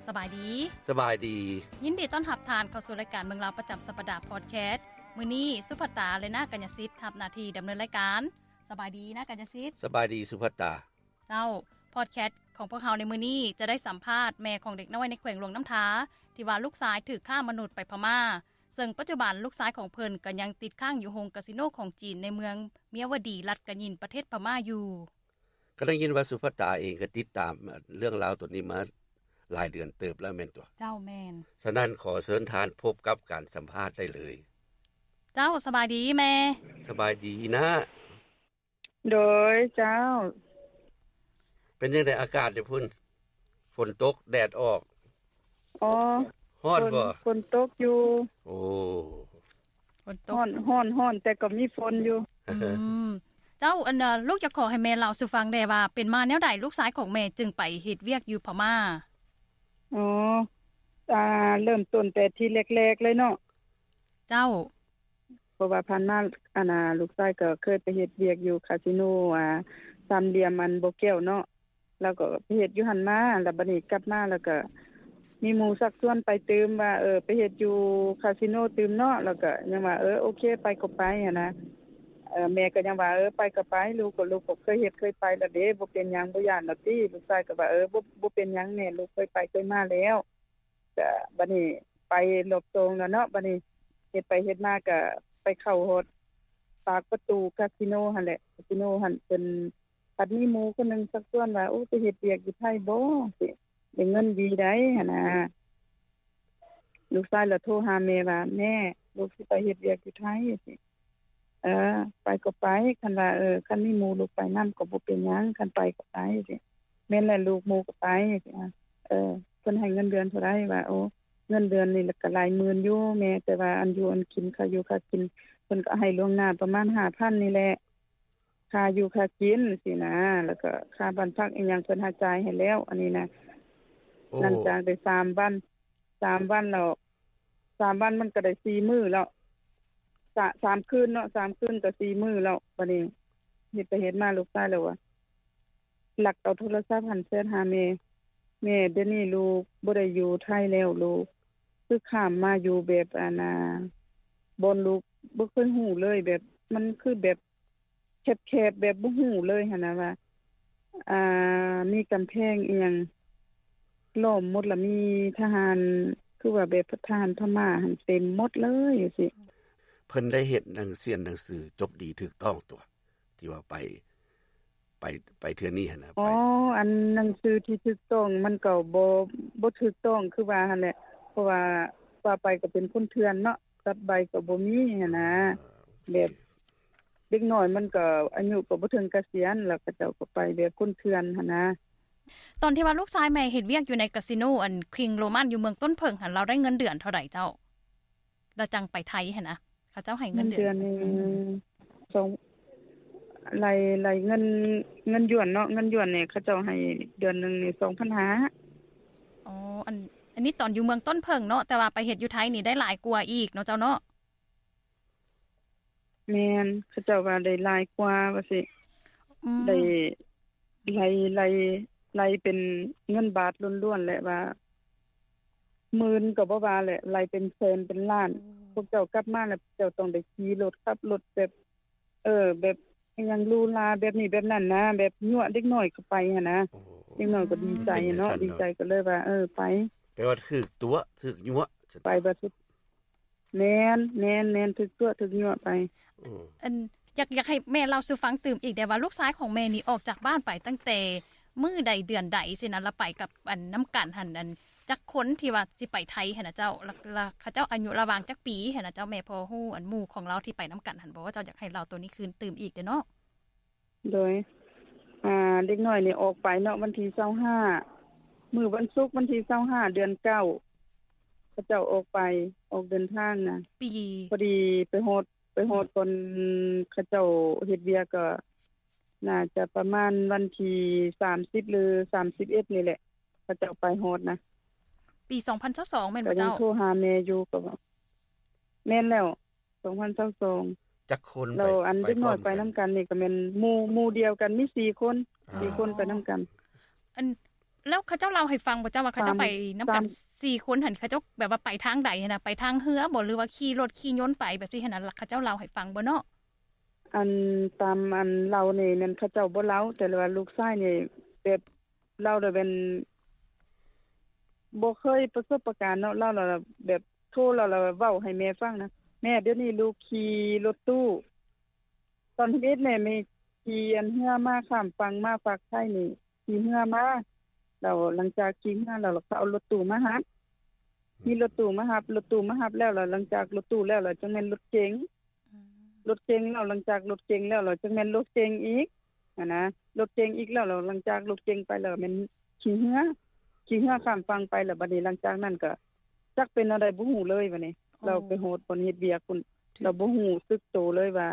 ສະບາຍດີ. ສະບາຍດີ. ຍິນດີຕ້ອນຮັບທ່ານເຂົ້າສູ່ລາຍການເມືອງລາວປະຈຳສັບປະດາພອດແຄສ. ມື້ນີ້ສຸພັດຕາ ແລະ ນາກັນຍະສິດ ຮັບໜ້າທີ່ດຳເນີນລາຍການ. ສະບາຍດີນາກັນຍະສິດ. ສະບາຍດີສຸພັດຕາ. ເຈົ້າ, ພອດແຄສຂອງພວກເຮົາໃນມື້ນີ້ຈະໄດ້ສຳພາດແມ່ຂອງເດັກນ້ອຍໃນແຂວງຫຼວງນ້ຳທາ ທີ່ວ່າລູກຊາຍຖືກຄ້າມະນຸດໄປພະມ້າ, ເຊິ່ງປັດຈຸບັນລູກຊາຍຂອງເພິ່ນກໍຍັງຕິດຄ້າງຢູ່ໂຮງກາສິໂນຂອງຈີນໃນເມືອງເມຍວະດີ ລັດກະຍິນ ປະເທດພະມ້າຢູ່. ກໍໄດ້ຍິນວ່າສຸພັດຕາເອງກໍຕິດຕາມເລື່ອງລາວຕົວນີ້ມາຫຼາຍເດືອນເຕີບແລ້ວແມ່ນຕົວະ? ເຈົ້າ, ແມ່ນ. ສະນັ້ນຂໍເຊີນທ່ານພົບກັບການສຳພາດໄດ້ເລີຍ. ເຈົ້າ, ສະບາຍດີແມ່. ສະບາຍດີນາ. ໂດຍ, ເຈົ້າ. ເປັນຈັ່ງໃດອາກາດຢູ່ພຸ້ນ? ຝົນຕົກແດດອອກ? ອໍ ຮ້ອນບໍ່? ຝົນຕົກຢູ່. ໂອ້ ຝົນຕົກ. ຮ້ອນ ຮ້ອນ ຮ້ອນ ແຕ່ກໍມີຝົນຢູ່. ອືມ ເຈົ້າ, ອັນ ລູກຢາກຂໍໃຫ້ແມ່ເລົ່າສູ່ຟັງແດ່ວ່າ ເປັນມາແນວໃດ ລູກຊາຍຂອງແມ່ຈຶ່ງໄປເຮັດວຽກຢູ່ພະມ້າ? ອໍ ອ່າ ເລີ່ມຕົ້ນແຕ່ທີແລກໆເລີຍເນາະ. ເຈົ້າ. ເພາະວ່າຜ່ານມາ ອັນນ່າ ລູກຊາຍກໍເຄີຍໄປເຮັດວຽກຢູ່ຄາສິໂນ ອ່າ ສາມຫຼ່ຽມອັນບໍ່ແກ້ວເນາະ, ລາວກໍໄປເຮັດຢູ່ຫັ້ນມາ. ແລ້ວບັດນີ້ກັບມາ ແລ້ວກໍມີໝູ່ຊັກຊວນໄປຕື່ມວ່າ ເອີ ໄປເຮັດຢູ່ຄາສິໂນຕື່ມເນາະ. ແລ້ວກໍຍັງວ່າ ເອີ ໂອເຄ ໄປກໍໄປຫັ້ນນະ. ເອີ ແມ່ກໍຍັງວ່າ ເອີ ໄປກໍໄປ ລູກກໍ ລູກກໍເຄີຍເຮັດເຄີຍໄປແລ້ວເດ້ ບໍ່ເປັນຫຍັງ ບໍ່ຢ້ານດອກຕິ. ລູກຊາຍກໍວ່າ ເອີ ບໍ່ ບໍ່ເປັນຫຍັງແມ່ ລູກເຄີຍໄປເຄີຍມາແລ້ວ. ກະບັດນີ້ໄປຮອບສອງແລ້ວເນາະ. ບັດນີ້ເຮັດໄປເຮັດມາກະໄປເຂົ້າຮອດປາກປະຕູກາສິໂນຫັ້ນແຫຼະ. ກາສິໂນຫັ້ນເພິ່ນພັດມີໝູ່ຄົນໜຶ່ງຊັກຊວນວ່າ ໂອ້ ໄປເຮັດວຽກຢູ່ໄທບໍ່ ຊິໄດ້ເງິນດີໃດຫັ້ນນະ. ລູກຊາຍລະໂທຫາແມ່ວ່າ ແມ່ ລູກຊິໄປເຮັດວຽກຢູ່ໄທ ຊິ ເອີ ໄປກໍໄປ ຄັນວ່າ ເອີ ຄັນມີໝູ່ລູກໄປນຳກໍບໍ່ເປັນຫຍັງ ຄັນໄປກໍໄປ ຊິ ແມ່ນແຫຼະລູກ ໝູ່ກໍໄປ ຊິ ເອີ ເພິ່ນໃຫ້ເງິນເດືອນເທົ່າໃດ ວ່າ ໂອ້ ເງິນເດືອນນີ້ລະກະຫຼາຍໝື່ນຢູ່ແມ່ ແຕ່ວ່າອັນຢູ່ອັນກິນ ຄ່າຢູ່ຄ່າກິນ ເພິ່ນກໍໃຫ້ລ່ວງໜ້າປະມານຫ້າພັນນີ້ແຫຼະ ຄ່າຢູ່ຄ່າກິນ ຊີ້ນະ ແລ້ວກໍຄ່າບ້ານພັກອີ່ຫຍັງ ເພິ່ນຫາຈ່າຍໃຫ້ແລ້ວ ອັນນີ້ນະ. ໂອ້ ຫຼັງຈາກໄດ້ສາມວັນ ສາມວັນແລ້ວ ສາມວັນມັນກໍໄດ້ສີ່ມື້ແລ້ວ ສາມ ສາມຄືນເນາະ ສາມຄືນກໍສີ່ມື້ແລ້ວ. ບັດນີ້ເຮັດໄປເຮັດມາ ລູກຊາຍລາວວ່າ ລັກເອົາໂທລະສັບຫັ້ນແຊັດຫາແມ່ ແມ່ ດຽວນີ້ລູກບໍ່ໄດ້ຢູ່ໄທແລ້ວ ລູກຄືຂ້າມມາຢູ່ແບບ ອັນນ່າ ບ່ອນລູກບໍ່ເຄີຍຮູ້ເລີຍ ແບບ ມັນຄືແບບ ແຄບໆ ແບບບໍ່ຮູ້ເລີຍຫັ້ນນະວ່າ ອ່າ ມີກຳແພງອີ່ຫຍັງລ້ອມໝົດ ລະມີທະຫານ ຄືວ່າແບບທະຫານພະມ້າຫັ້ນເຕັມໝົດເລີຍຈັ່ງຊີ້. ເພິ່ນໄດ້ເຮັດໜັງ ສຽນໜັງສືຈົບດີຖືກຕ້ອງຕົວະ ທີ່ວ່າໄປ ໄປ ໄປເທື່ອນີ້ຫັ້ນນະ? ອໍ ໄປ ອັນໜັງສືທີ່ຖືກຕ້ອງມັນກໍບໍ່ ບໍ່ຖືກຕ້ອງຄືວ່າຫັ້ນແຫຼະ ເພາະວ່າ ວ່າໄປກໍເປັນຄົນເຖື່ອນເນາະ ກັບໃບກໍບໍ່ມີຫັ້ນນະ. ອ່າ ໂອເຄ ແບບ ເດັກນ້ອຍມັນກໍອາຍຸກໍບໍ່ເຖິງກະສຽນ ແລ້ວເຂົາເຈົ້າກໍໄປແບບຄົນເຖື່ອນຫັ້ນນະ. ຕອນທີ່ວ່າລູກຊາຍແມ່ເຮັດວຽກຢູ່ໃນກາສິໂນ ອັນ ຄິງໂຣມັນ ຢູ່ເມືອງຕົ້ນເຜິ້ງຫັ້ນ ລາວໄດ້ເງິນເດືອນເທົ່າໃດເຈົ້າ? ລາວຈັ່ງໄປໄທຫັ້ນນະ ເຂົາເຈົ້າໃຫ້ເງິນເດືອນ ເດືອນໜຶ່ງ ສອງ ໄລ່ ໄລ່ເງິນ ເງິນຢວນເນາະ ເງິນຢວນນີ້ເຂົາເຈົ້າໃຫ້ເດືອນໜຶ່ງນີ້ສອງພັນຫ້າ. ອໍ ອັນ ອັນນີ້ຕອນຢູ່ເມືອງຕົ້ນເຜິ້ງເນາະ ແຕ່ວ່າໄປເຮັດຢູ່ໄທນີ້ໄດ້ຫຼາຍກວ່າອີກເນາະເຈົ້າເນາະ? ແມ່ນ ເຂົາເຈົ້າວ່າໄດ້ຫຼາຍກວ່າວ່າຊີ້ ອືມ ໄດ້ ໄລ່ ໄລ່ ໄລ່ເປັນເງິນບາດລ້ວນໆ ແຫຼະວ່າ ໝື່ນກໍບໍ່ວ່າແຫຼະ ໄລ່ເປັນແສນເປັນລ້ານ. ໂອ້ ພວກເຈົ້າກັບມາແລ້ວ ເຈົ້າຕ້ອງໄດ້ຂີ່ລົດ ຂັບລົດແບບ ເອີ ແບບອີ່ຫຍັງຫຼູຫຼາແບບນີ້ແບບນັ້ນນະ ແບບຍົວະເດັກນ້ອຍເຂົ້າໄປຫັ້ນນະ. ໂອ້ ເດັກນ້ອຍກໍດີໃຈເນາະ ດີໃຈກໍເລີຍວ່າ ເອີ ໄປ ແປວ່າຖືກຕົວະ ຖືກຍົວະ ໄປບໍ່ສຸດ ແມ່ນ ແມ່ນ ແມ່ນ ຖືກຕົວະຖືກຍົວະໄປ. ອືມ ອັນ ຢາກ ຢາກໃຫ້ແມ່ເລົ່າສູ່ຟັງຕື່ມອີກໄດ້ວ່າ ລູກຊາຍຂອງແມ່ນີ້ອອກຈາກບ້ານໄປຕັ້ງແຕ່ມື້ໃດເດືອນໃດຊີ້ນະ ລະໄປກັບ ອັນ ນຳກັນຫັ້ນ ອັນ ຈັກຄົນທີ່ວ່າຊິໄປໄທຫັ້ນນະເຈົ້າ ລະ ລະເຂົາເຈົ້າອາຍຸລະຫວ່າງຈັກປີຫັ້ນນະເຈົ້າ ແມ່ພໍຮູ້ ອັນ ໝູ່ຂອງລາວທີ່ໄປນຳກັນຫັ້ນບໍ່? ເຈົ້າຢາກໃຫ້ເລົ່າໂຕນີ້ຄືນຕື່ມອີກເດ້ເນາະ. ໂດຍ ອ່າ ເດັກນ້ອຍນີ້ອອກໄປເນາະ ວັນທີຊາວຫ້າ ມື້ວັນສຸກ ວັນທີຊາວຫ້າ ເດືອນເກົ້າ ເຂົາເຈົ້າອອກໄປ ອອກເດີນທາງນະ ປີ ພໍດີໄປຮອດ ໄປຮອດບ່ອນເຂົາເຈົ້າເຮັດວຽກ ກໍໜ້າຈະປະມານວັນທີສາມສິບ ຫຼື ສາມສິບເອັດນີ້ແຫຼະ ເຂົາເຈົ້າໄປຮອດນະ. ປີສອງພັນຊາວສອງແມ່ນບໍ່ເຈົ້າ? ກໍຍັງໂທຫາແມ່ຢູ່ ກໍວ່າ ແມ່ນແລ້ວ ສອງພັນຊາວສອງ. ຈັກຄົນ ແລ້ວອັນເດັກນ້ອຍໄປນຳກັນນີ້ກໍແມ່ນໝູ່ ໝູ່ດຽວກັນມີສີ່ຄົນ ອ່າ ສີ່ຄົນໄປນຳກັນ. ອັນ ແລ້ວເຂົາເຈົ້າເລົ່າໃຫ້ຟັງບໍ່ເຈົ້າວ່າເຂົາເຈົ້າໄປນຳກັນສີ່ຄົນຫັ້ນ ເຂົາເຈົ້າແບບວ່າໄປທາງໃດຫັ້ນນະ ໄປທາງເຮືອບໍ່ ຫຼືວ່າຂີ່ລົດຂີ່ຍົນໄປແບບຊີ້ຫັ້ນນະ ເຂົາເຈົ້າເລົ່າໃຫ້ຟັງບໍ່ເນາະ? ອັນຕາມອັນເລົ່ານີ້ແມ່ນເຂົາເຈົ້າບໍ່ເລົ່າ ແຕ່ວ່າລູກຊາຍນີ້ແບບເລົ່າແລ້ວແມ່ນບໍ່ເຄີຍປະສົບປະການເນາະ ເລົ່າແລ້ວແບບໂທແລ້ວເວົ້າໃຫ້ແມ່ຟັງນະ ແມ່ ດຽວນີ້ລູກຂີ່ລົດຕູ້ ຕອນທຳອິດແມ່ ແມ່ຂີ່ອັນເຮືອມາຂ້າມຝັ່ງມາຟາກໄທນີ້ ຂີ່ເຮືອມາ ແລ້ວຫຼັງຈາກຂີ່ເຮືອແລ້ວ ເຂົາເອົາລົດຕູ້ມາຮັບ ມີລົດຕູ້ມາຮັບ ລົດຕູ້ມາຮັບແລ້ວ ແລ້ວຫຼັງຈາກລົດຕູ້ແລ້ວ ແລ້ວຈັ່ງແມ່ນລົດເກັງ ອືມ ລົດເກັງແລ້ວ ຫຼັງຈາກລົດເກັງແລ້ວ ແລ້ວຈັ່ງແມ່ນລົດເກັງອີກຫັ້ນນະ ລົດເກັງອີກແລ້ວ ແລ້ວຫຼັງຈາກລົດເກັງໄປແລ້ວແມ່ນຂີ່ເຮືອ ຂີ່ເຮືອຂ້າມຝັ່ງໄປ ແລ້ວບັດນີ້ຫຼັງຈາກນັ້ນກໍຈັກເປັນແນວໃດບໍ່ຮູ້ເລີຍບັດນີ້ ເອີ ລາວໄປຮອດບ່ອນເຮັດວຽກພຸ້ນ ລາວບໍ່ຮູ້ສຶກໂຕເລີຍວ່າ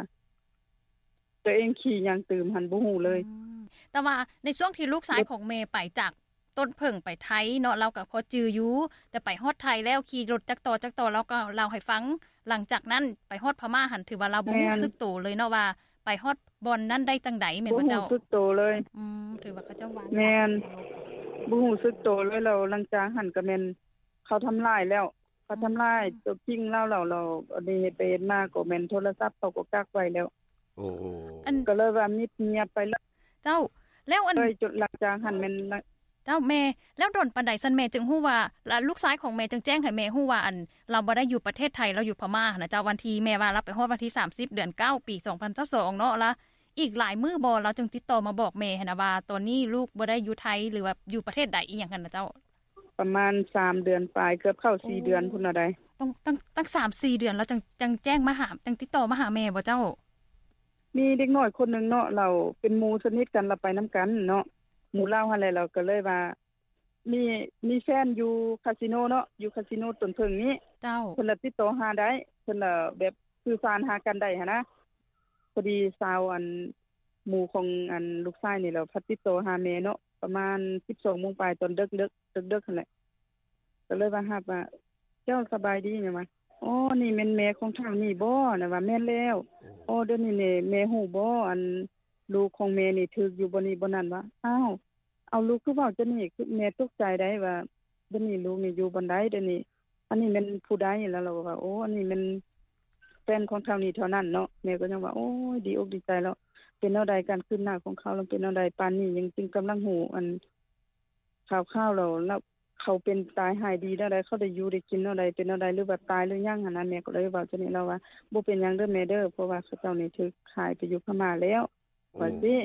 ຕົວເອງຂີ່ຫຍັງຕື່ມຫັ້ນບໍ່ຮູ້ເລີຍ ອືມ ແຕ່ວ່າໃນຊ່ວງທີ່ລູກຊາຍຂອງແມ່ໄປຈາກຕົ້ນເຜິ້ງໄປໄທເນາະ ລາວກໍພໍຈື່ຢູ່ ແຕ່ໄປຮອດໄທແລ້ວຂີ່ລົດຈັກຕໍ່ຈັກຕໍ່ ລາວກໍເລົ່າໃຫ້ຟັງ ຫຼັງຈາກນັ້ນໄປຮອດພະມ້າຫັ້ນ ຖືວ່າລາວບໍ່ຮູ້ສຶກໂຕເລີຍເນາະວ່າ ໄປຮອດບ່ອນນັ້ນໄດ້ຈັ່ງໃດ ແມ່ນບໍ່ເຈົ້າ? ບໍ່ຮູ້ສຶກໂຕເລີຍ ອືມ ຖືວ່າເຂົາເຈົ້າວາງ ແມ່ນ ບໍ່ຮູ້ສຶກໂຕເລີຍ ແລ້ວຫຼັງຈາກຫັ້ນກໍແມ່ນເຂົາທຳລາຍແລ້ວ ເຂົາທຳລາຍ ອືມ ຕົວຈິງລາວແລ້ວ ແລ້ວອັນນີ້ເຮັດໄປເຮັດມາກໍແມ່ນໂທລະສັບເຂົາກໍກັກໄວ້ແລ້ວ ໂອ້ ອັນ ກໍເລີຍວ່າມິດງຽບໄປເລີຍ ເຈົ້າ ແລ້ວອັນ ເລີຍຈົນຫຼັງຈາກຫັ້ນແມ່ນ ເຈົ້າ ແມ່ ແລ້ວດົນປານໃດຊັ້ນແມ່ຈຶ່ງຮູ້ວ່າ ລະລູກຊາຍຂອງແມ່ຈຶ່ງແຈ້ງໃຫ້ແມ່ຮູ້ວ່າ ອັນ ລາວບໍ່ໄດ້ຢູ່ປະເທດໄທ ລາວຢູ່ພະມ້າຫັ້ນນະເຈົ້າ ວັນທີ່ແມ່ວ່າລາວໄປຮອດວັນທີສາມສິບ ເດືອນເກົ້າ ປີສອງພັນຊາວສອງເນາະ ລະອີກຫຼາຍມື້ບໍ່ ລາວຈຶ່ງຕິດຕໍ່ມາບອກແມ່ຫັ້ນນະວ່າ ຕອນນີ້ລູກບໍ່ໄດ້ຢູ່ໄທ ຫຼືວ່າຢູ່ປະເທດໃດອີ່ຫຍັງຫັ້ນນະເຈົ້າ? ປະມານສາມເດືອນປາຍ ເກືອບເຂົ້າສີ່ເດືອນພຸ້ນລະໃດ໋ ຕ້ອງ ຕັ້ງ ຕັ້ງສາມສີ່ເດືອນ ລາວຈັ່ງ ຈັ່ງແຈ້ງມາຫາ ຈັ່ງຕິດຕໍ່ມາຫາແມ່ບໍ່ເຈົ້າ? ມີເດັກນ້ອຍຄົນໜຶ່ງເນາະ ລາວເປັນໝູ່ສະໜິດກັນ ລາວໄປນຳກັນເນາະ ໝູ່ລາວຫັ້ນແຫຼະ ລາວກໍເລີຍວ່າ ມີ ມີແຟນຢູ່ຄາສິໂນເນາະ ຢູ່ຄາສິໂນຕົ້ນເຜິ້ງນີ້ ເຈົ້າ ເພິ່ນລະຕິດຕໍ່ຫາໄດ້ ເພິ່ນລະແບບສື່ສານຫາກັນໄດ້ຫັ້ນນະ ພໍດີສາວ ອັນ ໝູ່ຂອງ ອັນ ລູກຊາຍນີ້ລະພັດຕິດຕໍ່ຫາແມ່ເນາະ ປະມານສິບສອງໂມງປາຍ ຕອນເດິກໆ ເດິກໆຫັ້ນແຫຼະ ກໍເລີຍວ່າຮັບວ່າ ເຈົ້າສະບາຍດີ ແມ່ນວ່າ ອໍ ນີ້ແມ່ນແມ່ຂອງທ້າວນີ້ບໍ ລະວ່າ ແມ່ນແລ້ວ ອໍ ດຽວນີ້ແມ່ຮູ້ບໍ ອັນ ລູກຂອງແມ່ນີ້ຖືກຢູ່ບ່ອນນີ້ບ່ອນນັ້ນ ວ່າ ອ້າວ ເອົາ ລູກຄືເວົ້າຈັ່ງນີ້ ຄືແມ່ຕົກໃຈໄດ໋ວ່າ ດຽວນີ້ລູກນີ້ຢູ່ບ່ອນໃດ ດຽວນີ້ ອັນນີ້ແມ່ນຜູ້ໃດ ລະລາວກໍວ່າ ໂອ້ ອັນນີ້ແມ່ນແຟນຂອງທ້າວນີ້ເທົ່ານັ້ນເນາະ ແມ່ກໍຍັງວ່າ ໂອ້ຍ ດີອົກດີໃຈແລ້ວ ເປັນແນວໃດ ການຄືບໜ້າຂອງເຂົາ ລະເປັນແນວໃດ ປານນີ້ຍັງຈຶ່ງກຳລັງຮູ້ ອັນ ຂ່າວໆ ແລ້ວ ລະເຂົາເປັນຕາຍຮ້າຍດີແນວໃດ ເຂົາໄດ້ຢູ່ໄດ້ກິນແນວໃດ ເປັນແນວໃດ ຫຼືວ່າຕາຍຫຼືຍັງຫັ້ນນະ ແມ່ກໍເລີຍເວົ້າຈັ່ງນີ້ ລາວວ່າ ບໍ່ເປັນຫຍັງເດີແມ່ເດີ ເພາະວ່າເຂົາເຈົ້ານີ້ຖືກຂາຍໄປຢູ່ພະມ້າແລ້ວ ວ່າຊີ້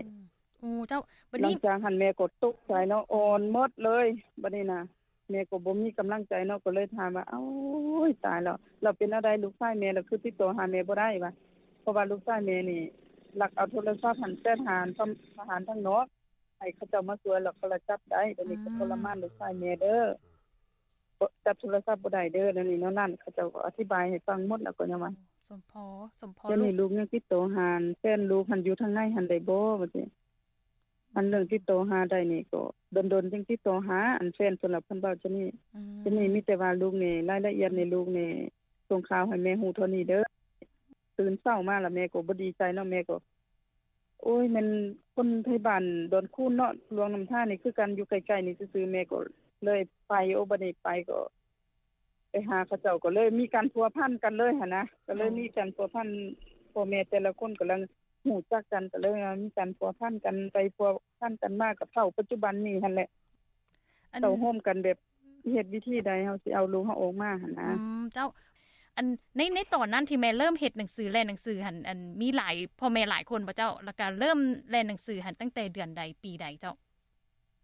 ໂອ້ ເຈົ້າ ບັດນີ້ ຫຼັງຈາກຫັ້ນແມ່ກໍຕົກໃຈເນາະ ອ່ອນໝົດເລີຍ ບັດນີ້ນະ ແມ່ກໍບໍ່ມີກຳລັງໃຈເນາະ ກໍເລີຍຖາມວ່າ ໂອ້ຍ ຕາຍແລ້ວ ລະເປັນແນວໃດ ລູກຊາຍແມ່ລະຄືຕິດຕໍ່ຫາແມ່ບໍ່ໄດ້ ວ່າ ເພາະວ່າລູກຊາຍແມ່ນີ້ ລັກເອົາໂທລະສັບຫັ້ນ ແຊດຫາທະຫານທາງນອກ ໃຫ້ເຂົາເຈົ້າມາຊ່ວຍ ແລ້ວເຂົາລະຈັບໄດ້ ດຽວນີ້ກໍ ອືມ ທໍລະມານລູກຊາຍແມ່ເດີ ຈັບໂທລະສັບບໍ່ໄດ້ເດີ ແນວນີ້ແນວນັ້ນ ເຂົາເຈົ້າກໍອະທິບາຍໃຫ້ຟັງໝົດ ແລ້ວກໍຍັງວ່າ ສົມພໍ ສົມພໍ ດຽວນີ້ລູກຍັງຕິດຕໍ່ຫາແຟນລູກຫັ້ນຢູ່ທາງໃນຫັ້ນໄດ້ບໍ່ ວ່າຊີ້ ອັນເລື່ອງຕິດຕໍ່ຫາໄດ້ນີ້ກໍດົນໆ ຈຶ່ງຕິດຕໍ່ຫາ ອັນແຟນເພິ່ນລະເພິ່ນເວົ້າຈັ່ງນີ້ ອືມ ດຽວນີ້ມີແຕ່ວ່າລູກນີ້ ລາຍລະອຽດໃນລູກນີ້ ສົ່ງຂ່າວໃຫ້ແມ່ຮູ້ເທົ່ານີ້ເດີ ຕື່ນເຊົ້າມາລະແມ່ກໍບໍ່ດີໃຈເນາະ ແມ່ກໍ ໂອ້ຍ ແມ່ນຄົນໄທບ້ານດອນຄູນເນາະ ຫຼວງນ້ຳທານີ້ຄືກັນ ຢູ່ໃກ້ໆນີ້ຊື່ໆ ແມ່ກໍເລີຍໄປ ໂອ້ ບັດນີ້ໄປກໍໄປຫາເຂົາເຈົ້າ ກໍເລີຍມີການພົວພັນກັນເລີຍຫັ້ນນະ ກໍເລີຍມີການພົວພັນ ພໍ່ແມ່ແຕ່ລະຄົນກຳລັງຮູ້ຈັກກັນ ກໍເລີຍມີການພົວພັນກັນໄປພົວພັນກັນມາ ກໍເທົ່າປັດຈຸບັນນີ້ຫັ້ນແຫຼະ ເຕົ້າໂຮມກັນແບບ ເຮັດວິທີໃດເຮົາຊິເອົາລູກເຮົາອອກມາຫັ້ນນະ ອືມ ເຈົ້າ ອັນ ໃນ ໃນຕອນນັ້ນທີ່ແມ່ເລີ່ມເຮັດໜັງສື ແລ່ນໜັງສືຫັ້ນ ອັນ ມີຫຼາຍ ພໍ່ແມ່ຫຼາຍຄົນບໍ່ເຈົ້າ? ແລ້ວກະເລີ່ມແລ່ນໜັງສືຫັ້ນຕັ້ງແຕ່ເດືອນໃດ ປີໃດເຈົ້າ?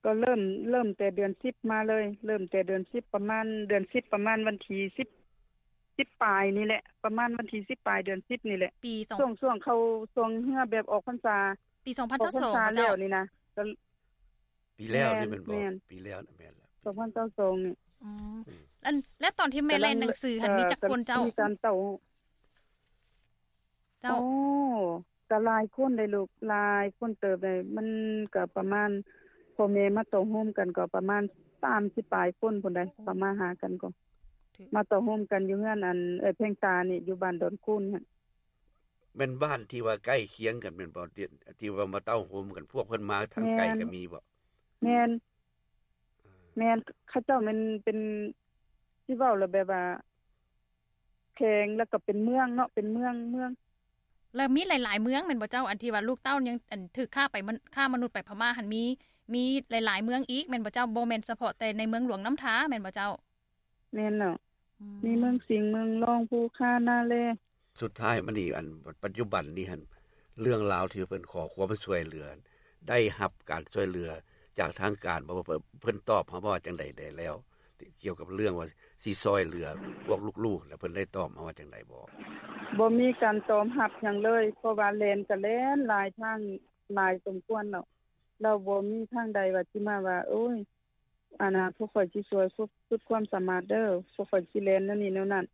ກໍເລີ່ມ ເລີ່ມແຕ່ເດືອນສິບມາເລີຍ ເລີ່ມແຕ່ເດືອນສິບ ປະມານເດືອນສິບ ປະມານວັນທີສິບ ສິບປາຍນີ້ແຫຼະ ປະມານວັນທີສິບປາຍເດືອນສິບນີ້ແຫຼະ ປີສອງ ຊ່ວງ ຊ່ວງເຂົ້າ ຊ່ວງເຮືອແບບອອກພັນສາ ປີສອງພັນຊາວສອງ ອອກພັນສາແລ້ວນີ້ນະ ກະ ປີແລ້ວນີ້ແມ່ນບໍ່? ແມ່ນ ປີແລ້ວນະ ແມ່ນແລ້ວ ສອງພັນຊາວສອງນີ້ ອືມ ອືມ ອັນ ແລ້ວຕອນທີ່ແມ່ແລ່ນໜັງສືຫັ້ນ ເອີ ມີຈັກຄົນເຈົ້າ? ມີການເຕົ້າ ເຈົ້າ ໂອ້ ກະຫຼາຍຄົນເດ້ລູກ ຫຼາຍຄົນເຕີບເດ້ ມັນກະປະມານ ພໍ່ແມ່ມາເຕົ້າໂຮມກັນກໍປະມານສາມສິບປາຍຄົນພຸ້ນໃດ໋ ເຂົ້າມາຫາກັນກໍ ມາເຕົ້າໂຮມກັນຢູ່ເຮືອນ ອັນ ເອື້ອຍແພງຕານີ້ ຢູ່ບ້ານດອນຄູນຫັ້ນ ແມ່ນບ້ານທີ່ວ່າໃກ້ຄຽງກັນແມ່ນບໍ່? ທີ່ ທີ່ວ່າມາເຕົ້າໂຮມກັນ ພວກເພິ່ນມາທາງໄກກໍມີບໍ່? ແມ່ນ ແມ່ນ ແມ່ນ ເຂົາເຈົ້າແມ່ນເປັນ ຊິເວົ້າແລ້ວແບບວ່າ ແຂວງ ແລ້ວກໍເປັນເມືອງເນາະ ເປັນເມືອງ ເມືອງ. ແລ້ວມີຫຼາຍໆເມືອງແມ່ນບໍ່ເຈົ້າ? ອັນທີ່ວ່າລູກເຕົ້າຍັງ ອັນຖືກຄ້າໄປ ມະ ຄ້າມະນຸດໄປພະມ້າຫັ້ນ ມີ ມີຫຼາຍໆເມືອງອີກແມ່ນບໍ່ເຈົ້າ? ບໍ່ແມ່ນສະເພາະແຕ່ໃນເມືອງຫຼວງນ້ຳທາແມ່ນບໍ່ເຈົ້າ? ແມ່ນແລ້ວ ອືມ ມີເມືອງສິງ ເມືອງລອງ ພູຄາ ນາແລ. ສຸດທ້າຍມານີ້ ອັນປັດຈຸບັນນີ້ຫັ້ນ ເລື່ອງລາວທີ່ເພິ່ນຂໍຄວາມຊ່ວຍເຫຼືອ ໄດ້ຮັບການຊ່ວຍເຫຼືອຈາກທາງການບໍ່? ເພິ່ນ ເພິ່ນຕອບເຮົາວ່າຈັ່ງໃດແດ່ແລ້ວ ກ່ຽວກັບເລື່ອງວ່າຊິຊ່ອຍເຫຼືອພວກລູກໆ ແລ້ວເພິ່ນໄດ້ຕອບມາວ່າຈັ່ງໃດບໍ່? ບໍ່ມີການຕອບຮັບຫຍັງເລີຍ ເພາະວ່າແລ່ນກໍແລ່ນຫຼາຍທາງ ຫຼາຍສົມຄວນແລ້ວ ແລ້ວບໍ່ມີທາງໃດວ່າຊິມາວ່າ ໂອ້ຍ ອັນນ່າ ພວກຂ້ອຍຊິຊ່ວຍສຸດຄວາມສາມາດເດີ້ ພວກຂ້ອຍຊິແລ່ນແນວນີ້ແນວນັ້ນ.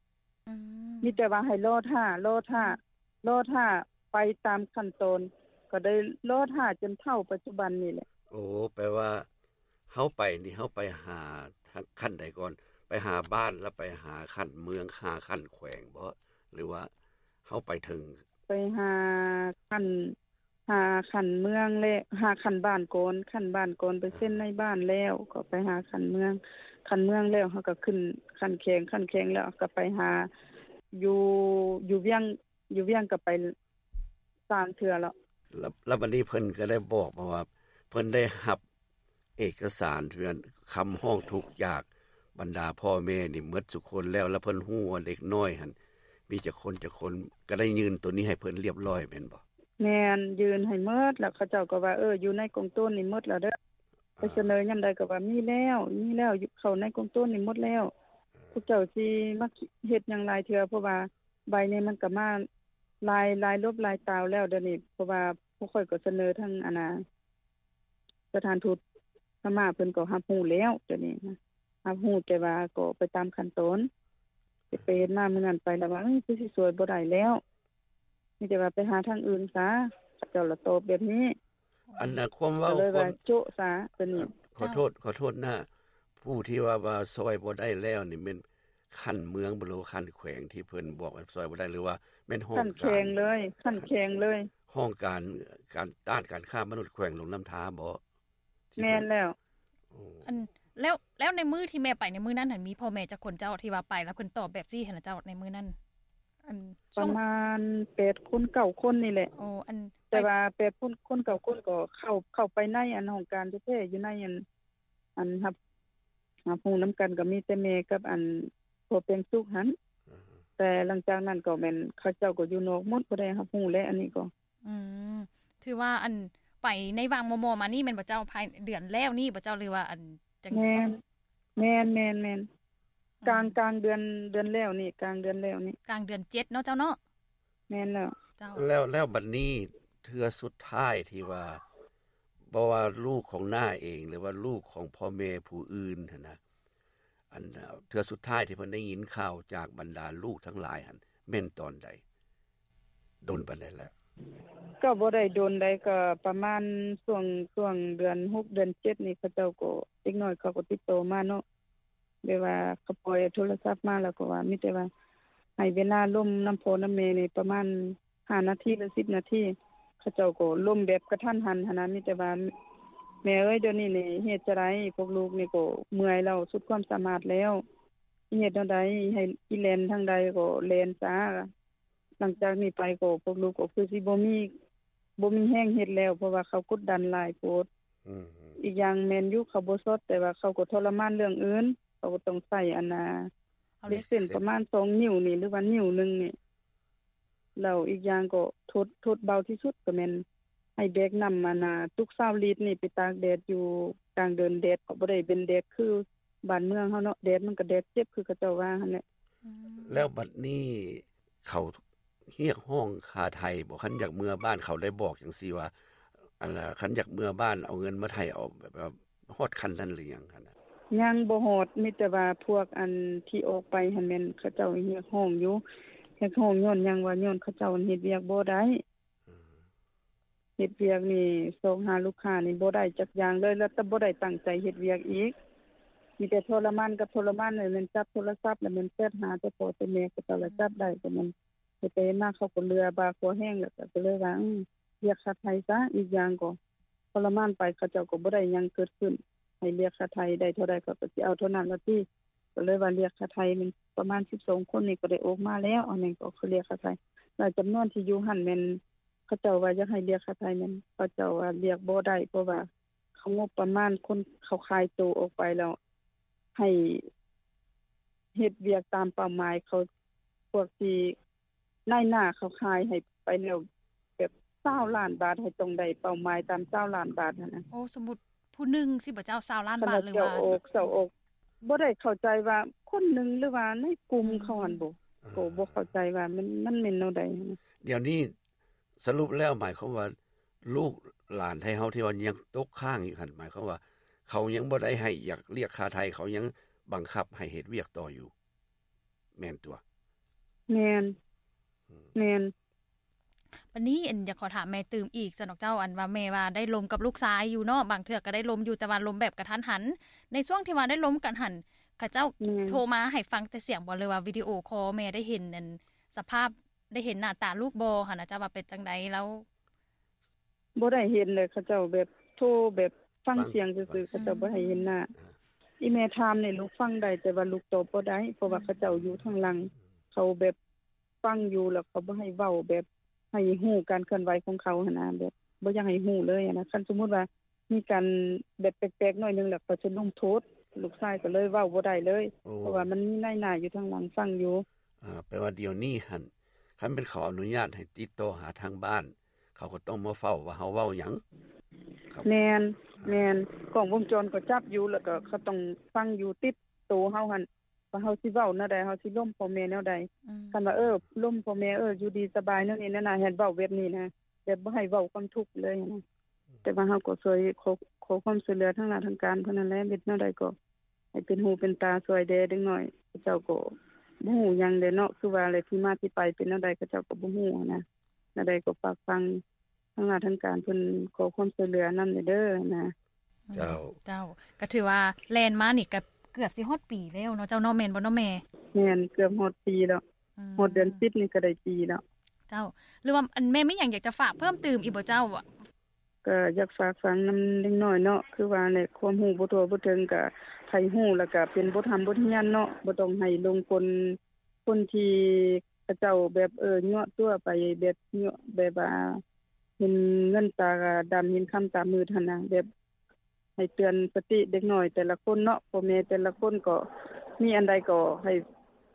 ອືມ ມີແຕ່ວ່າໃຫ້ລໍຖ້າ ລໍຖ້າ ລໍຖ້າ ໄປຕາມຂັ້ນຕອນ ກໍໄດ້ລໍຖ້າຈົນເທົ່າປັດຈຸບັນນີ້ແຫຼະ. ໂອ້ ແປວ່າເຮົາໄປນີ້ ເຮົາໄປຫາຂັ້ນໃດກ່ອນ? ໄປຫາບ້ານ ແລ້ວໄປຫາຂັ້ນເມືອງ ຫາຂັ້ນແຂວງບໍ່? ຫຼືວ່າເຮົາໄປເຖິງ ໄປຫາຂັ້ນ ຫາຂັ້ນເມືອງ ແລະ ຫາຂັ້ນບ້ານກ່ອນ ຂັ້ນບ້ານກ່ອນ ໄປເຊັນໃນບ້ານແລ້ວ ກໍໄປຫາຂັ້ນເມືອງ ຂັ້ນເມືອງແລ້ວ ເຮົາກໍຂຶ້ນຂັ້ນແຂວງ ຂັ້ນແຂວງແລ້ວ ກໍໄປຫາ ຢູ່ ຢູ່ວຽງ ຢູ່ວຽງກໍໄປສາມເທື່ອແລ້ວ. ແລ້ວ ແລ້ວບັດນີ້ເພິ່ນກໍໄດ້ບອກມາວ່າ ເພິ່ນໄດ້ຮັບເອກະສານ ເປັນຄຳຮ້ອງທຸກຈາກບັນດາພໍ່ແມ່ນີ້ໝົດທຸກຄົນແລ້ວ ແລ້ວເພິ່ນຮູ້ວ່າເດັກນ້ອຍຫັ້ນມີຈັກຄົນ ຈັກຄົນ ກໍໄດ້ຍື່ນໂຕນີ້ໃຫ້ເພິ່ນລຽບຮ້ອຍແມ່ນບໍ່? ແມ່ນ ຍື່ນໃຫ້ໝົດ ແລ້ວເຂົາເຈົ້າກໍວ່າ ເອີ ຢູ່ໃນກອງໂຕນນີ້ໝົດແລ້ວເດີ້ ໄປສະເໜີຍາມໃດກໍວ່າມີແລ້ວ ມີແລ້ວ ຢູ່ ເຂົ້າໃນກອງໂຕນນີ້ໝົດແລ້ວ ພວກເຈົ້າຊິມາເຮັດຫຍັງຫຼາຍເທື່ອ ເພາະວ່າໃບນີ້ມັນກໍມາຫຼາຍ ຫຼາຍລົບຫຼາຍຕາວແລ້ວດຽວນີ້ ເພາະວ່າພວກຂ້ອຍກໍສະເໜີທາງ ອັນນ່າ ສະຖານທູດພະມ້າເພິ່ນກໍຮັບຮູ້ແລ້ວ ດຽວນີ້ນະ ຮັບຮູ້ ແຕ່ວ່າກໍໄປຕາມຂັ້ນຕອນ ເຮັດໄປເຮັດມາມື້ນັ້ນໄປລະວ່າ ເອີ ຄືຊິຊ່ວຍບໍ່ໄດ້ແລ້ວ ມີແຕ່ວ່າໄປຫາທາງອື່ນຊະ ເຂົາເຈົ້າລະຕອບແບບນີ້. ອັນນ່າ ຄວາມເວົ້າ ກໍເລີຍວ່າໂຈະຊະ ຕົວນີ້. ຂໍໂທດ ຂໍໂທດນະ ຜູ້ທີ່ວ່າ ວ່າຊ່ອຍບໍ່ໄດ້ແລ້ວນີ້ແມ່ນຂັ້ນເມືອງບໍ່ ຫຼືວ່າຂັ້ນແຂວງທີ່ເພິ່ນບອກວ່າຊ່ອຍບໍ່ໄດ້ ຫຼືວ່າແມ່ນຫ້ອງການ? ຂັ້ນແຂວງເລີຍ ຂັ້ນແຂວງເລີຍ ຫ້ອງການ ການຕ້ານການຄ້າມະນຸດແຂວງຫຼວງນ້ຳທາບໍ່? ແມ່ນແລ້ວ. ອັນ ແລ້ວ ແລ້ວໃນມື້ທີ່ແມ່ໄປໃນມື້ນັ້ນຫັ້ນ ມີພໍ່ແມ່ຈັກຄົນເຈົ້າ ທີ່ວ່າໄປແລ້ວເພິ່ນຕອບແບບຊີ້ຫັ້ນນະເຈົ້າ ໃນມື້ນັ້ນ? ອັນ ປະມານແປດຄົນເກົ້າຄົນນີ້ແຫຼະ. ໂອ້ ອັນ ແຕ່ວ່າແປດຄົນ ຄົນເກົ້າຄົນກໍເຂົ້າ ເຂົ້າໄປໃນອັນຫ້ອງການແທ້ໆ ຢູ່ໃນອັນ ອັນຮັບ ຮັບຮູ້ນຳກັນກໍມີແຕ່ແມ່ກັບອັນພໍ່ແປງສຸກຫັ້ນ ແຕ່ຫຼັງຈາກນັ້ນກໍແມ່ນເຂົາເຈົ້າກໍຢູ່ນອກໝົດ ບໍ່ໄດ້ຮັບຮູ້ແຫຼະ ອັນນີ້ກໍ. ອືມ ຖືວ່າອັນໄປໃນຫວ່າງມໍ່ໆມານີ້ແມ່ນບໍ່ເຈົ້າ? ພາຍເດືອນແລ້ວນີ້ບໍ່ເຈົ້າ ຫຼືວ່າອັນຈັ່ງໃດ? ແມ່ນ ແມ່ນ ແມ່ນ ແມ່ນ ອືມ ກາງ ກາງເດືອນ ເດືອນແລ້ວນີ້ ກາງເດືອນແລ້ວນີ້ ກາງເດືອນເຈັດເນາະເຈົ້າເນາະ. ແມ່ນແລ້ວ ເຈົ້າ. ແລ້ວ ແລ້ວບັດນີ້ເທື່ອສຸດທ້າຍທີ່ວ່າ ບໍ່ວ່າລູກຂອງນ້າເອງ ຫຼືວ່າລູກຂອງພໍ່ແມ່ຜູ້ອື່ນຫັ້ນນະ ອັນ ເທື່ອສຸດທ້າຍທີ່ເພິ່ນໄດ້ຍິນຂ່າວຈາກບັນດາລູກທັງຫຼາຍຫັ້ນ ແມ່ນຕອນໃດ? ດົນປານໃດແລ້ວ? ກໍບໍ່ໄດ້ດົນໃດ ກໍປະມານຊ່ວງ ຊ່ວງເດືອນຫົກ ເດືອນເຈັດນີ້ ເຂົາເຈົ້າກໍ ເດັກນ້ອຍເຂົາກໍຕິດຕໍ່ມາເນາະ ແບບວ່າເຂົາປ່ອຍໂທລະສັບມາ ແລ້ວກໍວ່າ ມີແຕ່ວ່າໃຫ້ເວລາລົມນຳພໍ່ນຳແມ່ນີ້ປະມານຫ້ານາທີ ຫຼື ສິບນາທີ ເຂົາເຈົ້າກໍລົມແບບກະທັນຫັນຫັ້ນນະ ມີແຕ່ວ່າ ແມ່ເອີຍ ດຽວນີ້ນີ້ເຮັດຈັ່ງໃດ ພວກລູກນີ້ກໍເມື່ອຍແລ້ວ ສຸດຄວາມສາມາດແລ້ວ ຊິເຮັດແນວໃດ ໃຫ້ ຊິແລ່ນທາງໃດກໍແລ່ນຊະ ຫຼັງຈາກນີ້ໄປກໍພວກລູກກໍຄືຊິບໍ່ມີ ບໍ່ມີແຮງເຮັດແລ້ວ ເພາະວ່າເຂົາກົດດັນຫຼາຍໂພດ. ອືມ ອີກຢ່າງແມ່ນຢູ່ເຂົາບໍ່ຊອດ ແຕ່ວ່າເຂົາກໍທໍລະມານເລື່ອງອື່ນ ເຂົາກໍຕ້ອງໃຊ້ອັນນ່າ ເຫຼັກເສັ້ນປະມານສອງນິ້ວນີ້ ຫຼືວ່ານິ້ວໜຶ່ງນີ້ ແລ້ວອີກຢ່າງກໍທົດ ທົດເບົາທີ່ສຸດກໍແມ່ນໃຫ້ແບກນ້ຳອັນນ່າ ຕຸກຊາວລິດນີ້ໄປຕາກແດດຢູ່ກາງເດີ່ນ ແດດກໍບໍ່ໄດ້ເປັນແດດຄື ບ້ານເມືອງເຮົາເນາະ ແດດມັນກໍແດດເຈັບຄືເຂົາເຈົ້າວ່າຫັ້ນແຫຼະ. ອືມ ແລ້ວບັດນີ້ເຂົາຮຽກຮ້ອງຄ່າໄຖ່ບໍ່? ຄັນຢາກເມືອບ້ານ ເຂົາໄດ້ບອກຈັ່ງຊີ້ວ່າ ອັນ ຄັນຢາກເມືອບ້ານເອົາເງິນມາໄຖ່ເອົາ ແບບວ່າຮອດຂັ້ນນັ້ນຫຼືຍັງຫັ້ນນະ? ຍັງບໍ່ຮອດ ມີແຕ່ວ່າພວກອັນທີ່ອອກໄປຫັ້ນແມ່ນເຂົາເຈົ້າຮຽກຮ້ອງຢູ່ ຮຽກຮ້ອງຍ້ອນຫຍັງວ່າ ຍ້ອນເຂົາເຈົ້າເຮັດວຽກບໍ່ໄດ້. ອືມ ເຮັດວຽກນີ້ຊອກຫາລູກຄ້ານີ້ບໍ່ໄດ້ຈັກຢ່າງເລີຍ ແລ້ວກໍບໍ່ໄດ້ຕັ້ງໃຈເຮັດວຽກອີກ ມີແຕ່ທໍລະມານກັບທໍລະມານ ແລ້ວແມ່ນຈັບໂທລະສັບ ແລ້ວແມ່ນແຊັດຫາແຕ່ພໍ່ແຕ່ແມ່ ເຂົາເຈົ້າລະຈັບໄດ້ ກໍແມ່ນເຮັດໄປເຮັດມາເຂົາກໍເຫຼືອບ່າຄໍແຮງ ແລ້ວກໍ ກໍເລີຍວ່າ ອືມ ຮຽກຄ່າໄຖ່ຊະ ອີກຢ່າງກໍທໍລະມານໄປ ເຂົາເຈົ້າກໍບໍ່ໄດ້ຫຍັງເກີດຂຶ້ນ. ໃຫ້ລຽກຄ່າໄຖ່ໄດ້ເທົ່າໃດ ເຂົາກໍຊິເອົາເທົ່ານັ້ນລະຕິ. ກໍເລີຍວ່າລຽກຄ່າໄຖ່ແມ່ນປະມານສິບສອງຄົນນີ້ ກໍໄດ້ອອກມາແລ້ວ. ອັນນັ້ນກໍຄືລຽກຄ່າໄຖ່ ແລະ ຈຳນວນທີ່ຢູ່ຫັ້ນແມ່ນ ເຂົາເຈົ້າວ່າຢາກໃຫ້ລຽກຄ່າໄຖ່ແມ່ນ ເຂົາເຈົ້າວ່າລຽກບໍ່ໄດ້ ເພາະວ່າເຂົາງົບປະມານຄົນເຂົາຂາຍໂຕອອກໄປແລ້ວ ໃຫ້ເຮັດວຽກຕາມເປົ້າໝາຍເຂົາ ພວກທີ່ນາຍໜ້າເຂົາຂາຍໃຫ້ໄປແລ້ວ ແບບຊາວລ້ານບາດ ໃຫ້ຕ້ອງໄດ້ເປົ້າໝາຍຕາມຊາວລ້ານບາດຫັ້ນນະ. ໂອ້ ສົມມຸດຜູ້ໜຶ່ງຊິບໍ່ເຈົ້າ ຊາວລ້ານບາດ ຫຼືວ່າ ເຈົ້າອອກ ເຈົ້າອອກ ບໍ່ໄດ້ເຂົ້າໃຈວ່າຄົນໜຶ່ງ ຫຼືວ່າໃນກຸ່ມເຂົາຫັ້ນບໍ ອືມ ກໍບໍ່ເຂົ້າໃຈວ່າມັນ ມັນແມ່ນແນວໃດຫັ້ນນະ. ດຽວນີ້ ສະຫຼຸບແລ້ວໝາຍຄວາມວ່າ ລູກຫຼານໄທເຮົາທີ່ວ່າຍັງຕົກຄ້າງຢູ່ຫັ້ນ ໝາຍຄວາມວ່າ ເຂົາຍັງບໍ່ໄດ້ໃຫ້ຢາກລຽກຄ່າໄຖ່ ເຂົາຍັງບັງຄັບໃຫ້ເຮັດວຽກຕໍ່ຢູ່ ແມ່ນຕົວະ? ແມ່ນ ອືມ ແມ່ນ. ບັດນີ້ ອັນ ຢາກຂໍຖາມແມ່ຕື່ມອີກຊັ້ນດອກເຈົ້າ ອັນວ່າແມ່ວ່າໄດ້ລົມກັບລູກຊາຍຢູ່ເນາະ ບາງເທື່ອກໍໄດ້ລົມຢູ່ ແຕ່ວ່າລົມແບບກະທັນຫັນ. ໃນຊ່ວງທີ່ວ່າໄດ້ລົມກັນຫັ້ນ ເຂົາເຈົ້າ ແມ່ນ ໂທມາໃຫ້ຟັງແຕ່ສຽງບໍ່ ຫຼືວ່າວິດີໂອຄໍແມ່ໄດ້ເຫັນ ອັນ ສະພາບ ໄດ້ເຫັນໜ້າຕາລູກບໍ່ຫັ້ນນະ ເຈົ້າວ່າເປັນຈັ່ງໃດລາວ? ບໍ່ໄດ້ເຫັນເລີຍ ເຂົາເຈົ້າແບບໂທແບບຟັງ ຟັງສຽງຊື່ໆ ເຂົາເຈົ້າບໍ່ໃຫ້ເຫັນໜ້າ. ອາ ອີ່ແມ່ຖາມນີ້ລູກຟັງໄດ້ ແຕ່ວ່າລູກຕອບບໍ່ໄດ້ ເພາະວ່າ ອືມ ເຂົາເຈົ້າຢູ່ທາງຫຼັງ ເຂົາແບບຟັງຢູ່ ແລ້ວເຂົາບໍ່ໃຫ້ເວົ້າ ແບບໃຫ້ຮູ້ການເຄື່ອນໄຫວຂອງເຂົາຫັ້ນນະ ແບບບໍ່ຢາກໃຫ້ຮູ້ເລີຍຫັ້ນນະ. ຄັນສົມມຸດວ່າ ມີການແບບແປກໆໜ້ອຍໜຶ່ງ ແລ້ວເຂົາຈະລົງໂທດ ລູກຊາຍກໍເລີຍເວົ້າບໍ່ໄດ້ເລີຍ. ໂອ້ ເພາະວ່າມັນມີນາຍໜ້າຢູ່ທາງຫຼັງຟັງຢູ່. ອາ ແປວ່າດຽວນີ້ຫັ້ນ ຄັນແມ່ນເຂົາອະນຸຍາດໃຫ້ຕິດຕໍ່ຫາທາງບ້ານ ເຂົາກໍຕ້ອງມາເຝົ້າວ່າເຮົາເວົ້າຫຍັງ. ແມ່ນ ອາ ແມ່ນ ກ້ອງວົງຈອນກໍຈັບຢູ່ ແລ້ວກໍເຂົາຕ້ອງຟັງຢູ່ຕິດໂຕເຮົາຫັ້ນ ວ່າເຮົາຊິເວົ້າແນວໃດ ເຮົາຊິລົມພໍ່ແມ່ແນວໃດ. ອືມ ຄັນວ່າ ເອີ ລົມພໍ່ແມ່ ເອີ ຢູ່ດີສະບາຍແນວນີ້ແນວນັ້ນ ໃຫ້ເວົ້າແບບນີ້ນະ ແບບບໍ່ໃຫ້ເວົ້າຄວາມທຸກເລີຍນະ. ແຕ່ວ່າເຮົາກໍຊ່ວຍ ຂໍ ຂໍຄວາມຊ່ວຍເຫຼືອທາງດ້ານທາງການເທົ່ານັ້ນແຫຼະ ເຮັດແນວໃດກໍໃຫ້ເປັນຫູເປັນຕາຊ່ວຍແດ່ເດັກນ້ອຍ. ເຂົາເຈົ້າກໍບໍ່ຮູ້ຫຍັງແຫຼະເນາະ ຄືວ່າແຫຼະ ທີ່ມາທີ່ໄປເປັນແນວໃດ ເຂົາເຈົ້າກໍບໍ່ຮູ້ຫັ້ນນະ. ແນວໃດກໍຝາກຟັງ ທາງລາດທາງການເພິ່ນຂໍຄວາມຊ່ວຍເຫຼືອນຳແດ່ເດີນະ. ເຈົ້າ ເຈົ້າ ກໍຖືວ່າແລ່ນມານີ້ກໍເກືອບຊິຮອດປີແລ້ວເນາະເຈົ້າເນາະ ແມ່ນບໍ່ເນາະແມ່? ແມ່ນ ເກືອບຮອດປີແລ້ວ. ອືມ ຮອດເດືອນສິບນີ້ກໍໄດ້ປີແລ້ວ. ເຈົ້າ ຫຼືວ່າ ອັນ ແມ່ມີຫຍັງຢາກຈະຝາກເພີ່ມຕື່ມອີກບໍ່ເຈົ້າ? ກໍຢາກຝາກຝັງນຳເດັກນ້ອຍເນາະ ຄືວ່າແຫຼະ ຄວາມຮູ້ບໍ່ທົ່ວບໍ່ເຖິງ ກໍໃຜຮູ້ແລ້ວກໍເປັນບົດຮຽນ ບົດຮຽນເນາະ ບໍ່ຕ້ອງໃຫ້ຫຼົງກົນຄົນທີ່ ເຂົາເຈົ້າແບບ ເອີ ຍົວະຕົວະໄປ ແບບ ຍົວະ ແບບວ່າເຫັນເງິນຕາດຳ ເຫັນຄຳຕາມືດຫັ້ນນະ ແບບໃຫ້ເຕືອນສະຕິເດັກນ້ອຍແຕ່ລະຄົນເນາະ ພໍ່ແມ່ແຕ່ລະຄົນກໍມີອັນໃດກໍໃຫ້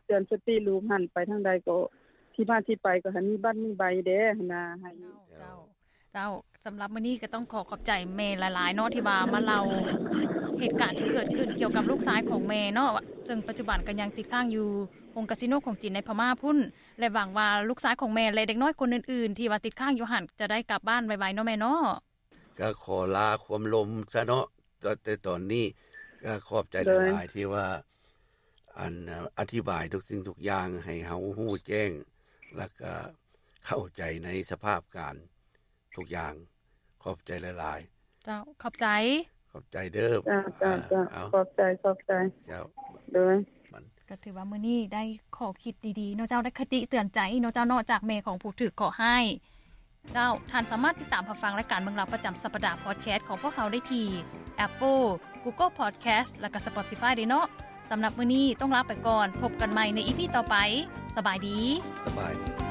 ເຕືອນສະຕິລູກຫັ້ນ ໄປທາງໃດກໍທີ່ມາທີ່ໄປກໍໃຫ້ມີບັດມີໃບແດ່ຫັ້ນນະ ໃຫ້ ເຈົ້າ ເຈົ້າ ເຈົ້າ ສຳລັບມື້ນີ້ກໍຕ້ອງຂໍຂອບໃຈແມ່ຫຼາຍໆເນາະ ທີ່ວ່າມາເລົ່າເຫດການທີ່ເກີດຂຶ້ນກ່ຽວກັບລູກຊາຍຂອງແມ່ເນາະ ເຊິ່ງປັດຈຸບັນກໍຍັງຕິດຄ້າງຢູ່ໂຮງກາສິໂນຂອງຈີນໃນພະມ້າພຸ້ນ ແລະ ຫວັງວ່າລູກຊາຍຂອງແມ່ ແລະ ເດັກນ້ອຍຄົນອື່ນໆ ທີ່ວ່າຕິດຄ້າງຢູ່ຫັ້ນ ຈະໄດ້ກັບບ້ານໄວໆເນາະແມ່ເນາະ. ກໍຂໍລາຄວາມລົມຊະເນາະ ແຕ່ຕອນນີ້ກໍຂອບໃຈຫຼາຍໆ ທີ່ວ່າ ອັນ ອະທິບາຍທຸກສິ່ງທຸກຢ່າງໃຫ້ເຮົາຮູ້ແຈ້ງ ແລ້ວກໍເຂົ້າໃຈໃນສະພາບການທຸກຢ່າງ. ຂອບໃຈຫຼາຍໆ. ເຈົ້າ ຂອບໃຈ. ຂອບໃຈເດີ. ເຈົ້າ ເຈົ້າ ເຈົ້າ ຂອບໃຈ ຂອບໃຈ. ເຈົ້າ ໂດຍ. ກໍຖືວ່າມື້ນີ້ໄດ້ຂໍ້ຄິດດີໆເນາະເຈົ້າ ໄດ້ຄະຕິເຕືອນໃຈເນາະເຈົ້າເນາະ ຈາກແມ່ຂອງຜູ້ຖືກເຄາະຮ້າຍ. ເຈົ້າ ທ່ານສາມາດຕິດຕາມຮັບຟັງລາຍການເມືອງລາວປະຈຳສັບປະດາ Podcast ຂອງພວກເຮົາໄດ້ທີ່ Apple, Google Podcast ແລະ ກໍ Spotify ເດ້ເນາະ. ສຳລັບມື້ນີ້ຕ້ອງລາໄປກ່ອນ ພົບກັນໃໝ່ໃນ ອີ ພີ ຕໍ່ໄປ. ສະບາຍດີ. ສະບາຍດີ.